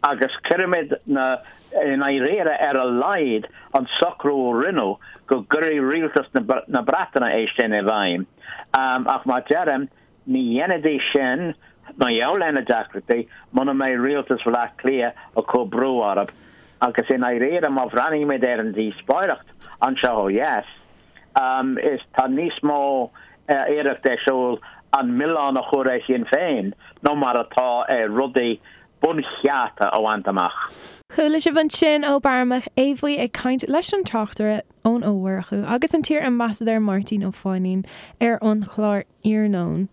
agus cuirimid na i ndáiríre, ar a laghad, an socrú a rinneadh go gcuirfidh rialtas na Breataine é sin i bhfeidhm. Ach mar deirim, ní dhéanfaidís sin, mar gheall ar na deacrachtaí, muna mbeidh rialtas Bhaile Átha Cliath ag cur brú orthu. Agus i ndáiríre, má bhreathnaímid ar an díospóireacht anseo ó dheas, is tá níos mó iarracht ar siúl an milleán a chur ar Shinn Féin ná mar atá ar rudaí bunchearta a bhaint amach. Chuala sibh ansin ó Barra Mac Aodha Bhuí ag caint leis an tráchtaire Eoin Ó Murchú agus an t-iar-ambasadóir Máirtín Ó Fainín ar an chlár Iarnóin.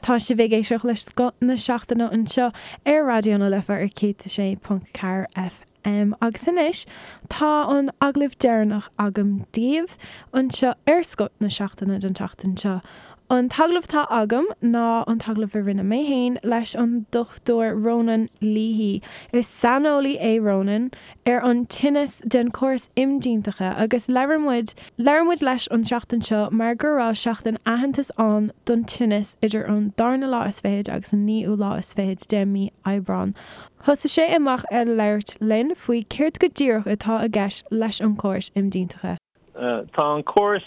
Tá sibh ag éisteacht le Scoth na Seachtaine anseo ar Raidió na Life ar 106.4 FM. Agus anois tá an agallamh deireanach agam daoibh anseo ar Scoth na Seachtaine don tseachtain seo. An t-agallamh atá agam ná an t-agallamh a rinne mé féin leis an Dr Ronan Leahy. Is saineolaí é Ronan ar an tinneas den chóras imdhíonachta agus labhair muid labhair muid leis an tseachtain seo mar go raibh seachtain aitheantais ann don tinneas idir an darna lá is fichead agus an naoú lá is fichead de mí Aibreán. Thosaigh sé amach ag labhairt linn faoi céard go díreach atá i gceist leis an chóras imdhíonachta. Tá an córas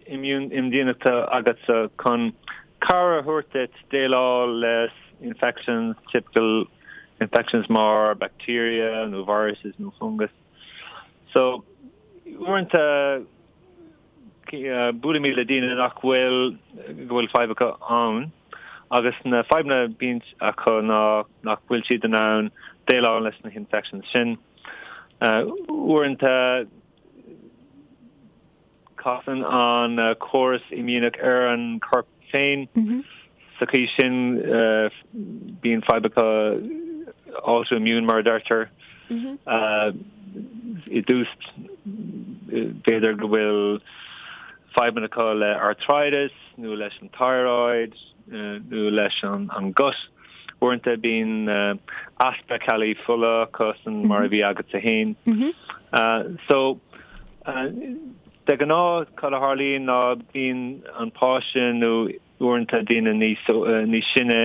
imdhíonachta agatsa chun cabhair a thabhairt duit déileáil le infections, typical. Infections mar bacteria nó viruses nó fungus. So, uaireanta buailimid le daoine nach bhfuil, go bhfuil fadhb acu ann agus na fadhbanna a bhíonn acu ná nach bhfuil siad in ann déileáil leis na hinfections sin. Uaireanta casann an córas imdhíonach ar an corp féin. Sa chaoi sin bíonn fadhb acu autoimmune mar a deirtear. I dtús b'fhéidir go bhfuil fadhbanna acu le arthritis nó leis an thyroid nó leis an gut. Uaireanta bíonn easpa ceallaí fola acu san mar a bhí agatsa féin. So de ghnáth cad a tharlaíonn ná bíonn an páiste nó uaireanta daoine níos níos sine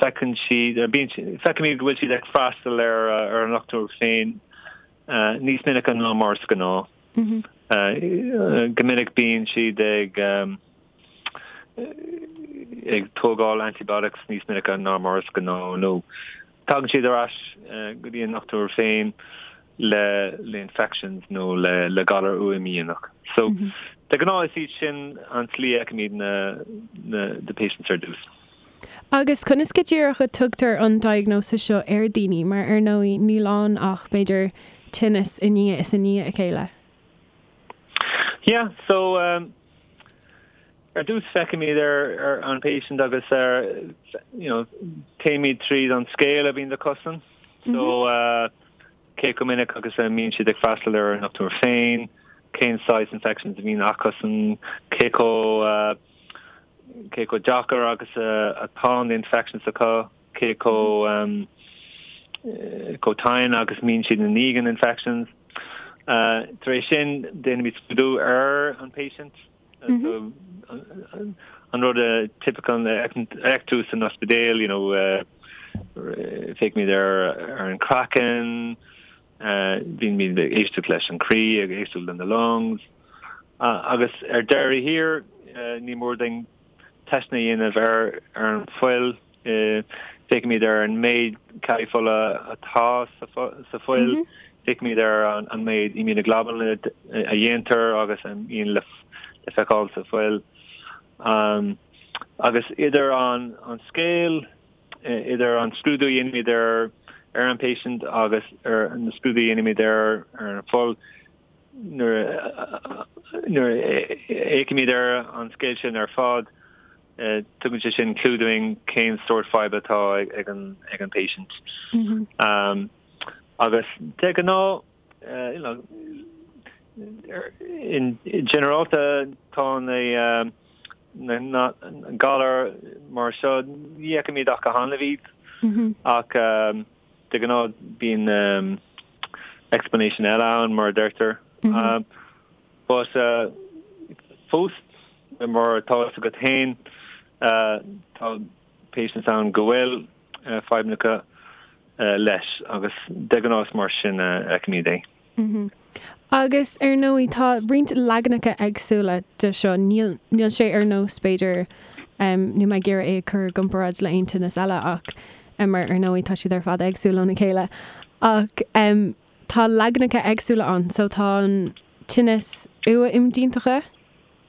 feiceann siad bíonn feicimid go bhfuil siad ag freastal ar ar an ndochtúir féin níos minice ná mar is gnáth. Go minic bíonn siad ag ag tógáil antibiotics níos minice ná mar is gnáth nó tagann siad ar ais go dtí an ndochtúir féin le le infections nó le le galar uath-imdhíonach. So de ghnáth is iad sin an tslí a fheicimid na na the patients ar dtús. Agus conas go díreach a tugtar an diagnosis seo ar daoine mar ar ndóigh níl ann ach b'fhéidir tinneas i ndiaidh is i ndiaidh a chéile? Yeah, so um, Ar dtús feicimid ar an patient agus ar you know téimid tríd an scéal a bhíonn acusan. So cé chomh minic agus a mbíonn siad ag freastal ar an ndochtúir féin, cén saghas infections a bhíonn acusan, cé chomh cé chomh deacair agus atá na infections acu, cé chomh chomh tinn agus mbíonn siad i ndiaidh an infections. Tar éis sin déanaimid scrúdú ar an patient. An rud typical a fheiceann tú san ospidéal, you know, féachaimid ar ar an craiceann, bímid ag éisteacht leis an croí, ag éisteacht le na lungs, agus ar deireadh thiar ní mór dúinn teisteanna a dhéanamh ar ar an fuil. Féachaimid ar an méid ceallaí fola atá sa fuil, féachaimid ar an méid immunoglobulin a dhéantar agus a mbíonn le feiceáil sa fuil. Agus idir an scéal, idir an scrúdú a dhéanaimid ar an patient agus ar na scrúdú a dhéanaimid ar an fuil, nuair a fhéachaimid ar an scéal sin ar fad, Tugann sé sin clue dúinn cén sórt fadhb atá ag an ag an patient. Agus de ghnáth, you know, in ginearálta tá na na galair mar seo, ní fheicimid ach go hannamh iad ach de ghnáth bíonn explanation eile ann mar a deirtear. But fós, mar atá fhios agat féin, tá patients ann go bhfuil fadhbanna acu leis agus de ghnáth is mar sin a fheicimid é. Agus ar ndóigh tá roinnt leaganacha éagsúla de seo, níl níl sé ar nós b'fhéidir, níl mé ag iarraidh é a chur i gcomparáid le aon tinneas eile ach mar ar ndóigh tá siad ar fad éagsúil óna chéile ach tá leaganacha éagsúla ann so tá an tinneas uath-imdhíontacha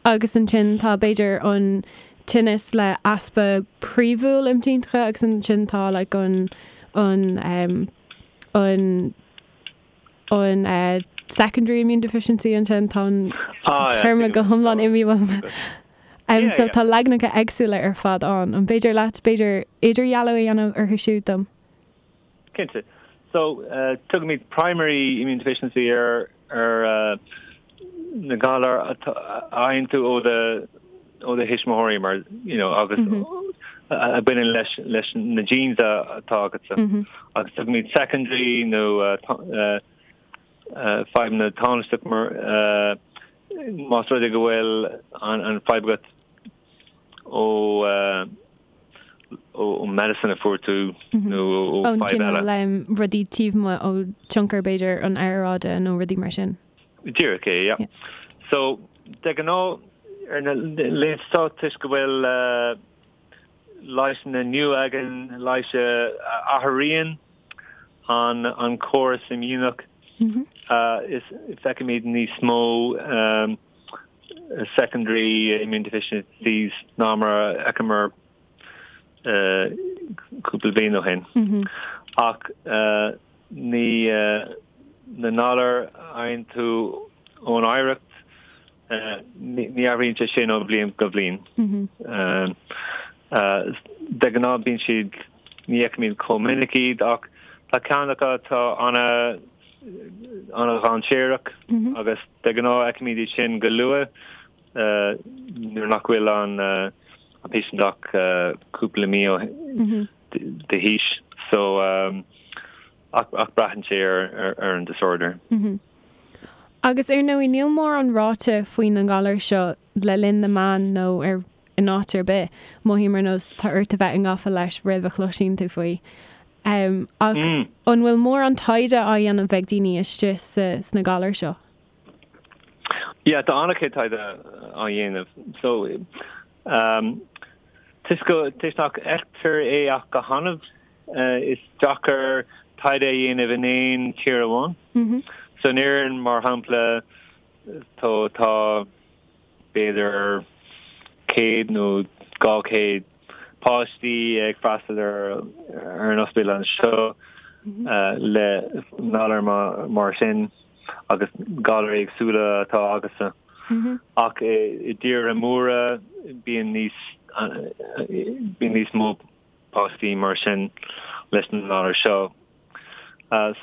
agus ansin tá b'fhéidir an tinneas le easpa príomhúil imdhíontacha agus ansin tá like an an um, an an uh, secondary immune deficiency ansin tá an ah, téarma go hiomlán imithe uaim. Um, so tá leaganacha éagsúla ar fad ann. An féidir leat b'fhéidir idirdhealú a dhéanamh orthu siúd dom? Cinnte. So, tugaimid primary immune deficiency ar ar na galair a fhaigheann tú ó do ó do thuismitheoirí mar you know agus a bhaineann leis leis na genes atá agatsa. Agus tugaimid secondary nó fadhbanna tánaisteach mar más rud é go bhfuil an fadhb agat ó ó medicine a fuair tú nó ó fadhb eile. Ón cineál rudaí taobh amuigh ó tionchar b'fhéidir an aeráide nó rudaí mar sin. Díreach é, yeah. So, de ghnáth ar na laethanta seo toisc go bhfuil. leigheasanna nua againn, leighis a athraíonn an córas imdhíonach, is feicimid níos mó secondary immune deficiencies ná mar a fheiceamar cúpla bliain ó shin. Ach ní na galair a fhaigheann tú ón oidhreacht, ní athraíonn sé sin ó bhliain go bliain. De ghnáth bíonn siad, ní fheicimid chomh minic iad ach tá ceann acu atá ana ana-dhainséarach agus de ghnáth feicimid iad sin go luath nuair nach bhfuil an patient ach cúpla mí d'aois. So ach braitheann sé ar an disorder. Agus ar ndóigh níl mórán ráite faoi na galair seo le linn na meán nó ar in áit ar bith. Mothaím ar nós tá ort a bheith i ngafa leis roimh a chloisíonn tú faoi. Ach an bhfuil mórán taighde á dhéanamh ag daoine istigh sna galair seo? Yeah, tá an-chuid taighde á dhéanamh. So, toisc go, toisc nach bhfeictear é ach go hannamh, is deacair taighde a dhéanamh in aon tír amháin. So in Éirinn, mar shampla, tá, tá b'fhéidir 100 nó 200 páistí ag freastal ar ar an ospidéal anseo le galar mar sin agus galair éagsúla atá acusan. Ach i dtíortha móra bíonn níos bíonn níos mó páistí mar sin leis na galair seo.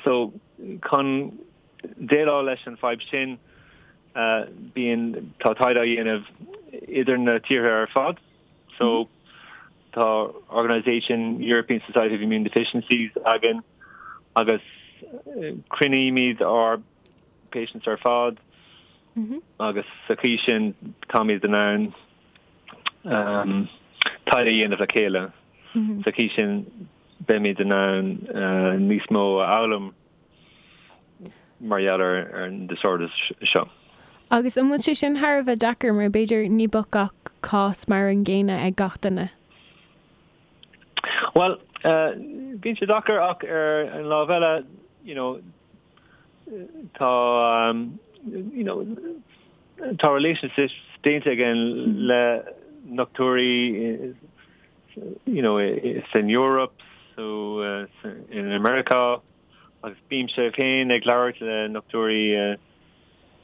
So chun déileáil leis an fadhb sin bíonn, tá taighde á dhéanamh idir na tíortha ar fad. So tá organisation European Society of Immune Deficiencies againn agus cruinnímid ár patients ar fad agus sa chaoi sin táimid in ann taighde a dhéanamh le chéile. Sa chaoi sin beimid in ann níos mó a fhoghlaim mar gheall ar an disorders seo. Agus an bhfuil sé sin thar a bheith deacair mar b'fhéidir ní bheadh gach cás mar an gcéanna ag gach duine? Bhuel, bíonn sé deacair ach ar an lámh eile, you know, tá, you know, tá relationships déanta againn le dochtúirí, you know, san Eoraip, so in America agus bímse féin ag labhairt le dochtúirí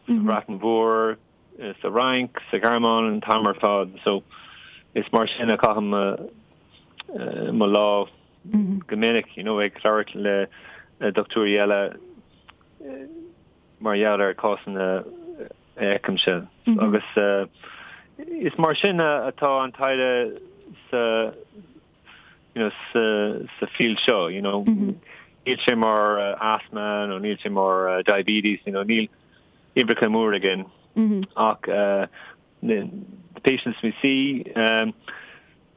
sa Bhreatain Mhór, sa Fhrainc, sa Ghearmáin an t-am ar fad. So is mar sin a chaithim mo lá go minic, you know, ag labhairt le dochtúirí eile mar gheall ar cásanna a fheicimse. Agus is mar sin atá an taighde sa you know, sa, sa field seo, you know. Níl sé mar asthma nó níl sé mar diabetes, you know, níl uimhreacha mór againn. Ach the patients we see,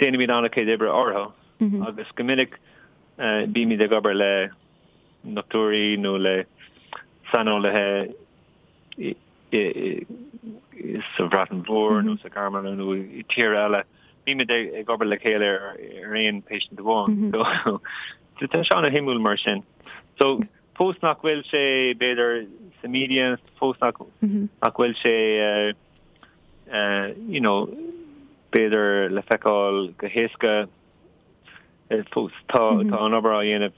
déanaimid an-chuid oibre orthu agus go minic bímid ag obair le dochtúirí nó le saineolaithe sa Bhreatain Mhór nó sa Ghearmáin nó i tír eile. Bímid ag obair le chéile ar aon patient amháin. So tá sé an-shuimiúil mar sin. So fós nach bhfuil sé b'fhéidir sa media, fós nach nach bhfuil sé you know b'fhéidir le feiceáil go héasca fós tá tá an obair á dhéanamh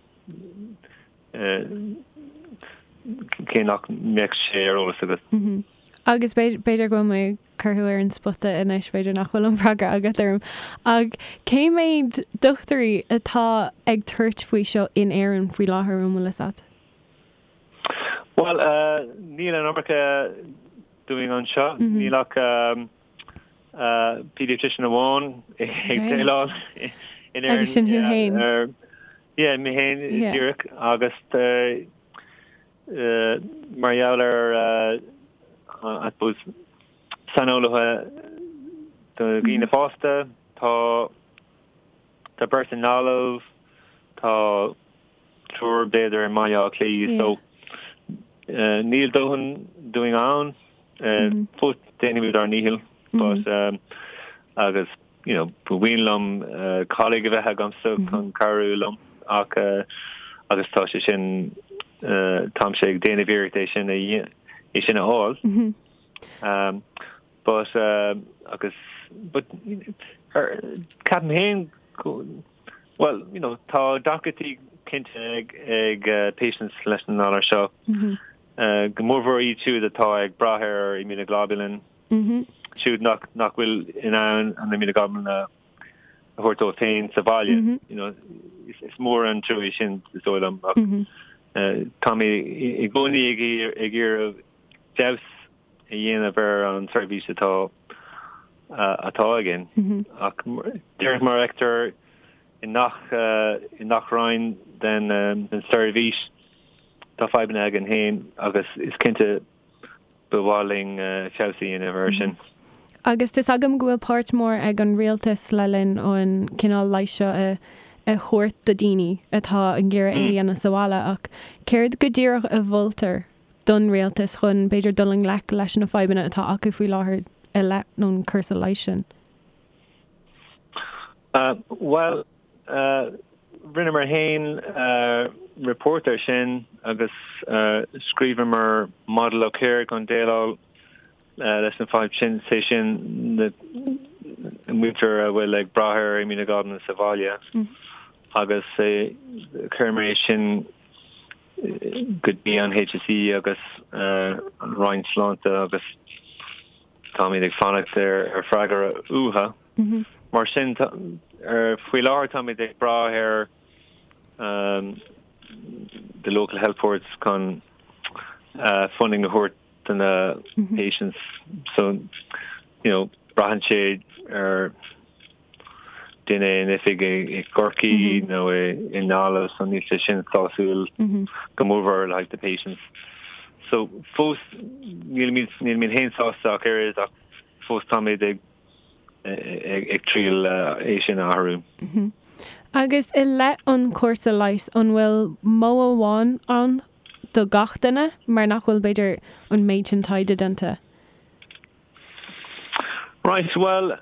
cé nach mbeadh sé ar eolas agat. Agus b'fhéidir go bhfuil mé ag cur thú ar an spota anois, b'fhéidir nach bhfuil an freagra agat orm, ach cé méid dochtúirí atá ag tabhairt faoi seo in Éirinn faoi láthair, an bhfuil fhios agat? Bhuel, níl an iomarca dúinn anseo, níl ach pediatrician amháin ag déileáil in Éirinn. Agus sin thú féin? Yeah, mé féin díreach agus mar gheall ar I suppose saineolaithe do dhaoine fásta, tá tá beirt i nGaillimh, tá triúr b'fhéidir i mBaile Átha Cliath so níl dóthain dúinn ann. Fós déanaimid ár ndícheall but agus. You know, ba mhian liom colleague a bheith agamsa chun cabhrú liom ach agus tá sé sin, táimse ag déanamh iarracht é sin a é sin a fháil. But agus but ceapaim féin go bhuel, you know, tá deacrachtaí cinnte ag ag patients leis an ngalar seo, go mórmhór iad siúd atá ag brath ar immunoglobulin. Siúd nach nach bhfuil in ann an immunoglobulin a thabhairt dóibh féin sa bhaile. You know, is mór an trua é sin is dóigh liom ach tá mé i gcónaí ag ag iarraidh feabhas a dhéanamh ar an tseirbhís atá atá againn. Ach díreach mar a fheictear i ngach i ngach roinn den den seirbhís tá fadhbanna againn féin agus is cinnte Ba mhaith linn feabhas a dhéanamh air sin. Agus tá's agam go bhfuil páirt mhór ag an rialtas le linn an cineál leighis seo a thabhairt do daoine atá ag iarraidh é a dhéanamh sa bhaile ach céard go díreach a mholtar don rialtas chun b'fhéidir dul i ngleic leis na fadhbanna atá acu faoi láthair i leith an cúrsa leighis sin? Bhuel, Rinneamar féin report air sin agus scríobhamar model of care chun déileáil leis an fadhb sin, sé sin na muintir a bhfuil ag brath ar immunoglobulin sa bhaile agus chuireamar é sin go dtí an HSE agus an Roinn Sláinte agus táimid ag fanacht ar freagra uathu. Mar sin, faoi láthair táimid ag brath ar the local health boards chun funding a thabhairt do na patients. So, you know, braitheann sé ar duine in oifig i gCorcaigh nó i nGaillimh, so níl sé sin sásúil go mórmhór le haghaidh the patients. So fós nílimid nílimid féin sásta ach oiread ach fós táimid ag ag triail é sin a athrú. Agus i leith an chúrsa leighis, an bhfuil modh amháin ann do gach duine, mar nach bhfuil, b'fhéidir, an méid sin taighde déanta? Right, bhuel,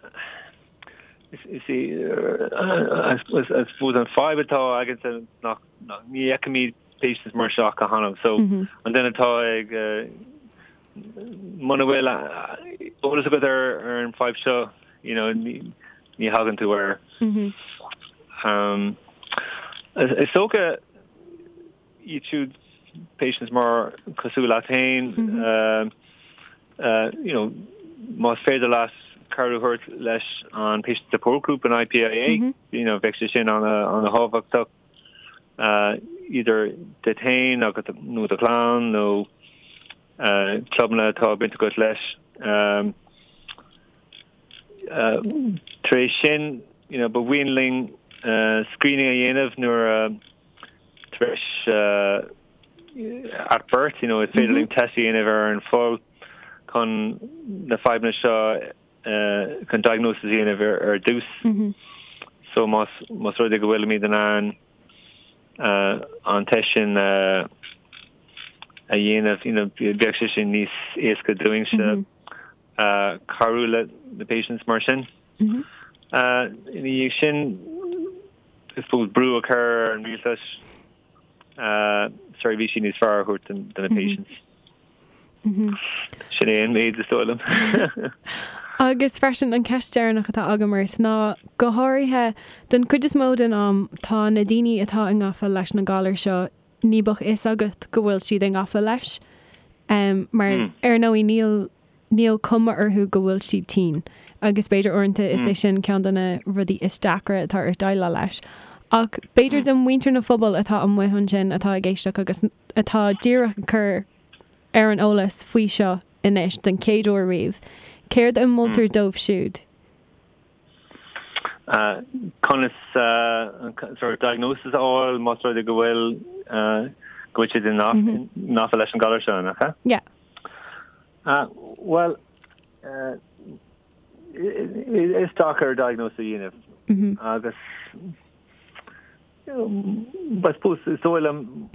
is í, I suppose an fadhb atá againne nach, ní fheicimid patients mar seo go hannamh, so an duine atá ag, Muna bhfuil eolas agat ar an fadhb seo, you know, ní thagann tú air. Is dócha iad siúd patients mar cosúil leat féin, you know, más féidir leat cabhrú a thabhairt leis an patient support group an IPIA, you know, bheadh sé sin an-thábhachtach. idir duit féin agus nó do chlann nó clubanna atá baint agat leis. Tar éis sin, you know, ba mhian linn screening a dhéanamh nuair a tar éis at birth, you know, is féidir linn test a dhéanamh ar an fuil chun na fadhbanna seo chun diagnosis a dhéanamh ar dtús. So más más rud é go bhfuilimid in ann an test sin a dhéanamh, you know, bheadh sé sin níos éasca dúinnse cabhrú le na patients mar sin. Ina dhiaidh sin, I suppose brú a chur ar an rialtas seirbhísí níos fearr a thabhairt do na patients. Sin é an méid is dóigh liom. Agus freisin an ceist deireanach atá agam ort ná, go háirithe, don chuid is mó den am tá na daoine atá i ngafa leis na galair seo, ní bheadh fhios agat go bhfuil siad i ngafa leis mar ar ndóigh níl níl cuma orthu go bhfuil siad tinn agus b'fhéidir uaireanta is é sin ceann de na rudaí is deacra atá ort déileáil leis. Ach b'fhéidir do mhuintir na phobail atá amuigh ansin atá ag éisteacht agus atá díreach ag cur ar an eolas faoi seo anois den chéad uair riamh, céard a mholtar dóibh siúd? Conas sort of diagnosis a fháil más rud é go bhfuil go bhfuil siad i ngafa leis an galar seo, nach ea? Yeah. Bhuel, is deacair diagnosis a dhéanamh agus I suppose is dóigh liom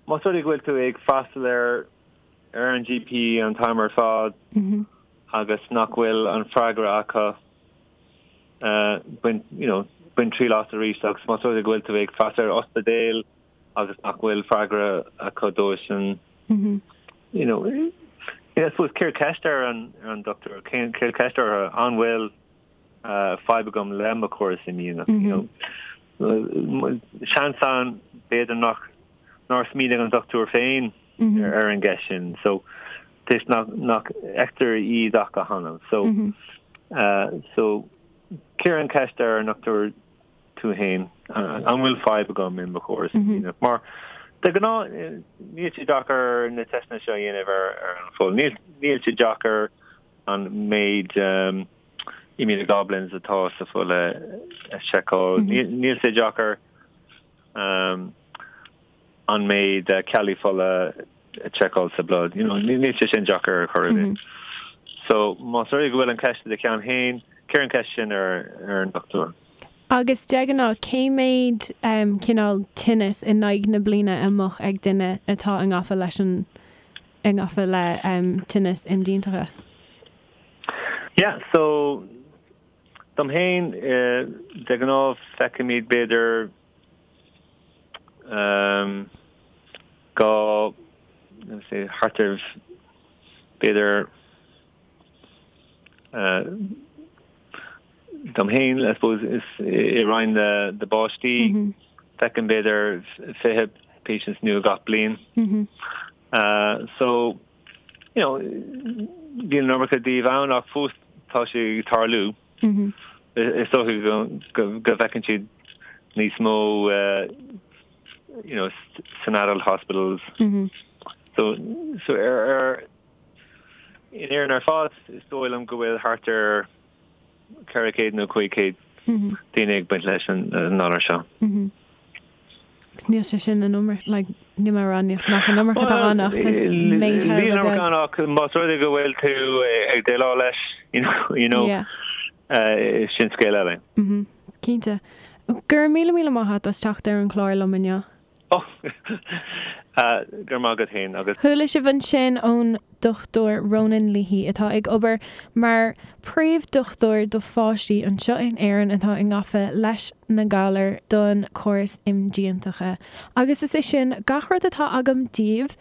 más rud é go bhfuil tú ag freastal ar ar an GP an t-am ar fad agus nach bhfuil an freagra acu. Bain, you know, bain triail as arís agus más rud é go bhfuil tú ag freastal ar ospidéal agus nach bhfuil freagra acu dó sin, you know, I suppose cuir ceist ar an, ar an dochtúir, cuir ceist orthu an bhfuil fadhb agam le mo chóras imdhíonach, you know. Seans ann b'fhéidir nach, nár smaoinigh an dochtúir féin ar an gceist sin. So, toisc nach, nach bhfeictear iad ach go hannamh. So, so, cuir an cheist ar an ndochtúir tú féin, an bhfuil fadhb agam i mo chóras imdhíonach? Mar de ghnáth níl sé deacair na teisteanna seo a dhéanamh ar, ar an bhfuil. Níl, níl sé deacair an méid immunoglobulins atá sa bhfuil a, a sheiceáil. Níl, níl sé deacair an méid ceallaí fola a sheiceáil sa blood. You know, níl sé sin deacair ar chor ar bith. So, más rud é go bhfuil an cheist i do cheann féin, cuir an cheist sin ar ar an dochtúir. Agus de ghnáth, cé méid cineál tinnis in aghaidh na bliana a mbeadh ag duine atá i ngafa leis an, i ngafa le tinneas imdhíontacha? Yeah, so, dom féin, de ghnáth feicimid b'fhéidir go thart ar b'fhéidir dom féin, I suppose, is i roinn na bpáistí, feicim b'fhéidir 20 patients nua gach bliain. So, you know, bíonn an iomarca díobh ann ach fós tá sé ag tarlú. Is dócha go bhfeiceann siad níos mó you know san adult hospitals. So so ar ar in Éirinn ar fad is dóigh liom go bhfuil thart ar 400 nó 500 daoine ag baint leis an ngalar seo. Agus níl sé sin an iomarca, like, níl mé ag rá nach an iomarca atá ann ach tá méid thar a bheith beag. Ann ach más rud é go bhfuil tú ag déileáil leis, you know, yeah. uh, sin scéal eile. Mm -hmm. Cinnte. Go raibh míle míle maith agat as teacht ar an chlár liom inniu. Oh, uh, go raibh maith agat féin agus. Chuala sibh ansin ón Dr Ronan Leahy atá ag obair mar phríomh-dhochtúir do pháistí anseo in Éirinn atá i ngafa leis na galair don chóras imdhíontacha. Agus is é sin gach rud atá agam daoibh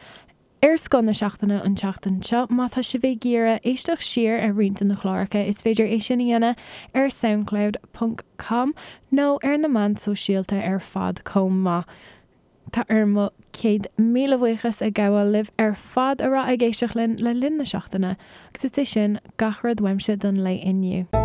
ar Scoth na Seachtaine an tseachtain seo. Má tá sibh ag iarraidh éisteacht siar ar roinnt de na cláracha is féidir é sin a dhéanamh ar soundcloud ponc com nó ar na meáin sóisialta ar fad chomh maith. Tá orm mo chéad míle buíochas a ghabháil libh ar fad a raibh ag éisteacht linn le linn na seachtaine, agus is é sin gach rud uaimse don lae inniu.